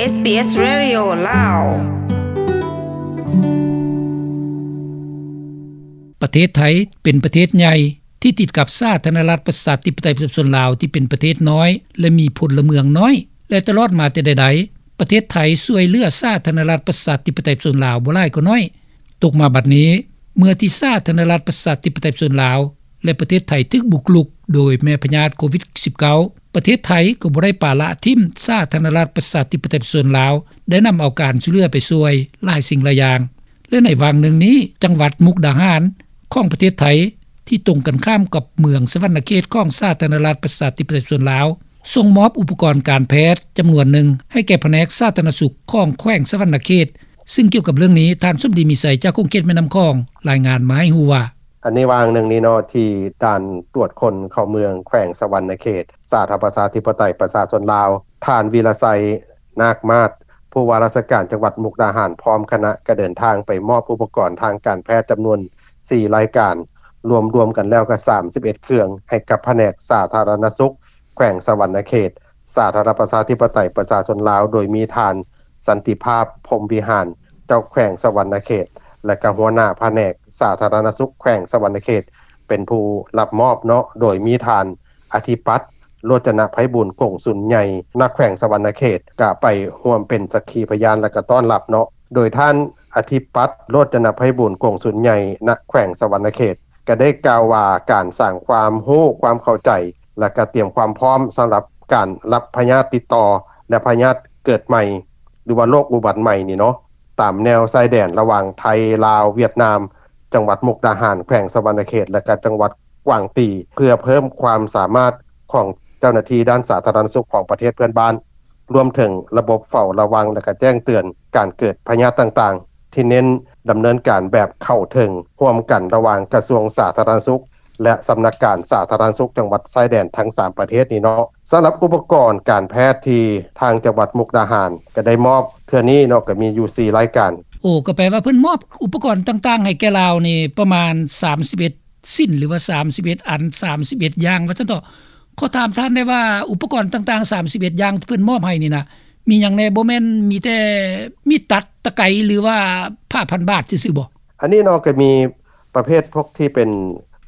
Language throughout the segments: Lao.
ເອສບີເອສ ເຣດິໂອ ລາວ. ປະເທດໄທເປັນປະເທດໃຫຍ່ທີ່ຕິດກັບສາທາລະນະລັດປະຊາທິປະໄຕປະຊາຊົນລາວທີ່ເປັນປະເທດນ້ອຍ ແລະ ມີພົນລະເມືອງນ້ອຍ ແລະ ຕະຫຼອດມາແຕ່ໃດໆ ປະເທດໄທຊ່ວຍເຫຼືອສາທາລະນະລັດປະຊາທິປະໄຕປະຊາຊົນລາວບໍ່ຫຼາຍກໍໜ້ອຍ. ຕົກມາບັດນີ້ ເມື່ອທີ່ສາທາລະນະລັດປະຊາທິປະໄຕປະຊາຊົນລາວ ແລະ ປະເທດໄທຖືກບຸກລຸກໂດຍແມ່ພະຍາດໂຄວິດສິບເກົ້າ ປະເທດໄທກໍບໍ່ໄດ້ປະລະຖິ້ມສາທາລະນະລັດປະຊາທິປະໄຕປະຊາຊົນລາວ ໄດ້ນຳເອົາການຊ່ວຍເຫຼືອໄປຊ່ວຍຫຼາຍສິ່ງຫຼາຍຢ່າງ ແລະ ໃນຫວ່າງໜຶ່ງນີ້ ຈັງຫວັດມຸກດາຫານຂອງປະເທດໄທ ທີ່ຕົງກັນຂ້າມກັບເມືອງສະຫວັນນະເຂດຂອງສາທາລະນະລັດປະຊາທິປະໄຕປະຊາຊົນລາວ ສົ່ງມອບອຸປະກອນການແພດຈຳນວນໜຶ່ງໃຫ້ແກ່ພະແນກສາທາລະນະສຸກຂອງແຂວງສະຫວັນນະເຂດ. ຊຶ່ງກ່ຽວກັບເລື່ອງນີ້ ທ່ານສົມດີ ມີໄຊ ຈາກຂົງເຂດແມ່ນ້ຳຂອງ ລາຍງານມາໃຫ້ຮູ້ວ່າ: ອັນໃນຫວ່າງໜຶ່ງນີ້ເນາະ ທີ່ດ່ານກວດຄົນເຂົ້າເມືອງແຂວງສະຫວັນນະເຂດ ສາທາລະນະລັດປະຊາທິປະໄຕປະຊາຊົນລາວ ທ່ານ ວິລະໄຊ ນາກມາດ ຜູ້ວ່າລາຊະການຈັງຫວັດມຸກດາຫານ ພ້ອມຄະນະ ກໍເດີນທາງໄປມອບອຸປະກອນທາງການແພດຈຳນວນສີ່ລາຍການ ລວມໆກັນແລ້ວກໍສາມສິບເອັດເຄື່ອງ ໃຫ້ກັບພະແນກສາທາລະນະສຸກແຂວງສະຫວັນນະເຂດ ສາທາລະນະລັດປະຊາທິປະໄຕປະຊາຊົນລາວ ໂດຍມີທ່ານ ສັນຕິພາບ ພົມວິຫານ ເຈົ້າແຂວງສະຫວັນນະເຂດ ແລະ ກໍຫົວໜ້າພະແນກສາທາລະນະສຸກແຂວງສະຫວັນນະເຂດ ເປັນຜູ້ຮັບມອບເນາະ ໂດຍມີທ່ານ ອະທິປັດ ໂລດຈະນະໄພບູນ ກົງສຸນໃຫຍ່ ນາແຂວງສະຫວັນນະເຂດ ກະໄປຮ່ວມເປັນສັກຂີພະຍານ ແລະ ກະຕ້ອນຮັບເນາະ. ໂດຍທ່ານ ອະທິປັດ ໂລດຈະນະໄພບູນ ກົງສຸນໃຫຍ່ ນາແຂວງສະຫວັນນະເຂດ ກະໄດ້ກ່າວວ່າ ການສ້າງຄວາມຮູ້ຄວາມເຂົ້າໃຈ ແລະ ກະຕຽມຄວາມພ້ອມສຳລັບການຮັບພະຍາດຕິດຕໍ່ ແລະ ພະຍາດເກີດໃໝ່ ຫຼືວ່າໂລກອຸບັດໃໝ່ນີ້ເນາະ ຕາມແນວຊາຍແດນລະຫວ່າງໄທ ລາວ ຫວຽດນາມ ຈັງຫວັດມຸກດາຫານ ແຂວງສະຫວັນນະເຂດ ແລະ ກະຈັງຫວັດກວາງຕີ ເພື່ອເພີ່ມຄວາມສາມາດຂອງເຈົ້າໜ້າທີ່ດ້ານສາທາລະນະສຸກຂອງປະເທດເພື່ອນບ້ານ ລວມເຖິງລະບົບເຝົ້າລະວັງ ແລະ ກະແຈ້ງເຕືອນການເກີດພະຍາດຕ່າງໆ ທີ່ເນັ້ນດຳເນີນການແບບເຂົ້າເຖິງ ຮ່ວມກັນລະຫວ່າງກະຊວງສາທາລະນະສຸກ ແລະ ສຳນັກງານສາທາລະນະສຸກຈັງຫວັດຊາຍແດນທັງສາມປະເທດນີ້ເນາະ. ສຳລັບອຸປະກອນການແພດທີ່ທາງຈັງຫວັດມຸກດາຫານກະໄດ້ມອບເທື່ອນີ້ເນາະ ກະມີຢູ່ສີ່ລາຍການ. ໂອ້ ກໍແປວ່າເພິ່ນມອບອຸປະກອນຕ່າງໆໃຫ້ແກ່ລາວນີ້ປະມານສາມສິບເອັດ ຊິ້ນ ຫຼືວ່າສາມສິບເອັດອັນ ສາມສິບເອັດຢ່າງວ່າຊັ້ນເຖາະ. ຂໍຖາມທ່ານແດ່ວ່າ ອຸປະກອນຕ່າງໆສາມສິບເອັດຢ່າງທີ່ເພິ່ນມອບໃຫ້ນີ້ນະ ມີຫຍັງແດ່? ບໍ່ແມ່ນມີແຕ່ມີດຕັດ, ຕະໄກ ຫຼືວ່າຜ້າພັນບາດຊື່ໆບໍ? ອັນນີ້ເນາະ ກໍມີປະເພດພວກທີ່ເປັນ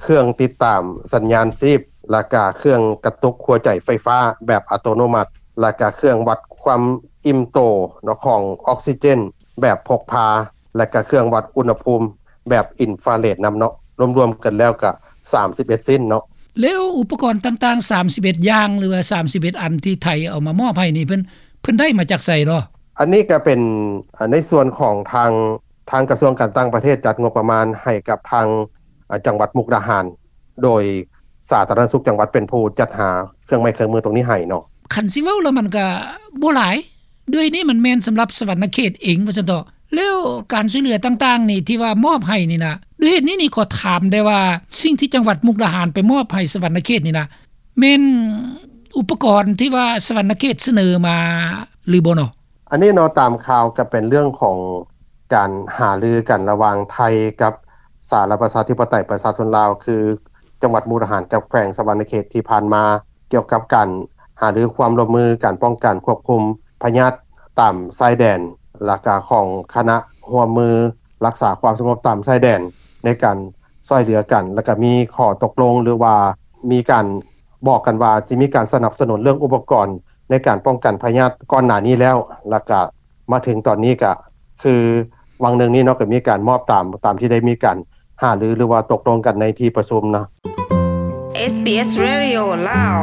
ເຄື່ອງຕິດຕາມສັນຍານຊີບ ແລ້ວກະເຄື່ອງກະຕຸກຫົວໃຈໄຟຟ້າແບບອັດຕະໂນມັດ ແລ້ວກະເຄື່ອງວັດຄວາມອີ່ມໂຕເນາະ ຂອງອອກຊີເຈນແບບພົກພາ ແລະ ກະເຄື່ອງວັດອຸນຫະພູມແບບອິນຟາເຣດນຳເນາະ. ລວມໆກັນແລ້ວກະສາມສິບເອັດຊິ້ນເນາະ. ແລ້ວອຸປະກອນຕ່າງໆສາມສິບເອັດຢ່າງ ຫຼືວ່າສາມສິບເອັດອັນທີ່ໄທເອົາມາມອບໃຫ້ນີ້ ເພິ່ນ ເພິ່ນໄດ້ມາຈາກໃສເນາະ? ອັນນີ້ກະເປັນ ອາ ໃນສ່ວນຂອງທາງ ທາງກະຊວງການຕ່າງປະເທດຈັດງົບປະມານໃຫ້ກັບທາງ ອາ ຈັງຫວັດມຸກດາຫານ ໂດຍສາທາລະນະສຸກຈັງຫວັດເປັນຜູ້ຈັດຫາເຄື່ອງໄມ້ເຄື່ອງມືຕົງນີ້ໃຫ້ເນາະ. ຄັນຊິເວົ້າແລ້ວມັນກະບໍ່ຫຼາຍ ດ້ວຍນີ້ມັນແມ່ນສຳລັບສະຫວັນນະເຂດເອງວ່າຊັ້ນເຖາະ. ແລ້ວການຊ່ວຍເຫຼືອຕ່າງໆນີ້ທີ່ວ່າມອບໃຫ້ນີ້ນະ ດ້ວຍເຫດນີ້ນີ້ຂໍຖາມໄດ້ວ່າ ສິ່ງທີ່ຈັງຫວັດມຸກດາຫານໄປມອບໃຫ້ສະຫວັນນະເຂດນີ້ນະ ແມ່ນອຸປະກອນທີ່ວ່າສະຫວັນນະເຂດສະເໜີມາຫຼືບໍ່ເນາະ? ອັນນີ້ເນາະ ຕາມຂ່າວກະເປັນເລື່ອງຂອງການຫາລືກັນລະຫວ່າງໄທກັບສາທາລະນະລັດປະຊາທິປະໄຕປະຊາຊົນລາວ ຄື ຈັງຫວັດມຸກດາຫານກັບແຂວງສະຫວັນນະເຂດທີ່ຜ່ານມາ ກ່ຽວກັບການຫາລືຄວາມຮ່ວມມືການປ້ອງກັນຄວບຄຸມພະຍາດຕາມຊາຍແດນ ແລ້ວກະຂອງຄະນະຮ່ວມມືຮັກສາຄວາມສະຫງົບຕາມຊາຍແດນ ໃນການຊ່ວຍເຫຼືອກັນ ແລ້ວກະມີຂໍ້ຕົກລົງ ຫຼືວ່າມີການບອກກັນວ່າຊິມີການສະໜັບສະໜູນເລື່ອງອຸປະກອນໃນການປ້ອງກັນພະຍາດກ່ອນໜ້ານີ້ແລ້ວ ແລ້ວກະ ມາເຖິງຕອນນີ້ກະຄືຫວ່າງໜຶ່ງນີ້ເນາະ ກະມີການມອບຕາມ ຕາມທີ່ໄດ້ມີການຫາລື ຫຼືວ່າຕົກລົງກັນໃນທີ່ປະຊຸມເນາະ. ເອສບີເອສ ເຣດິໂອ ລາວ.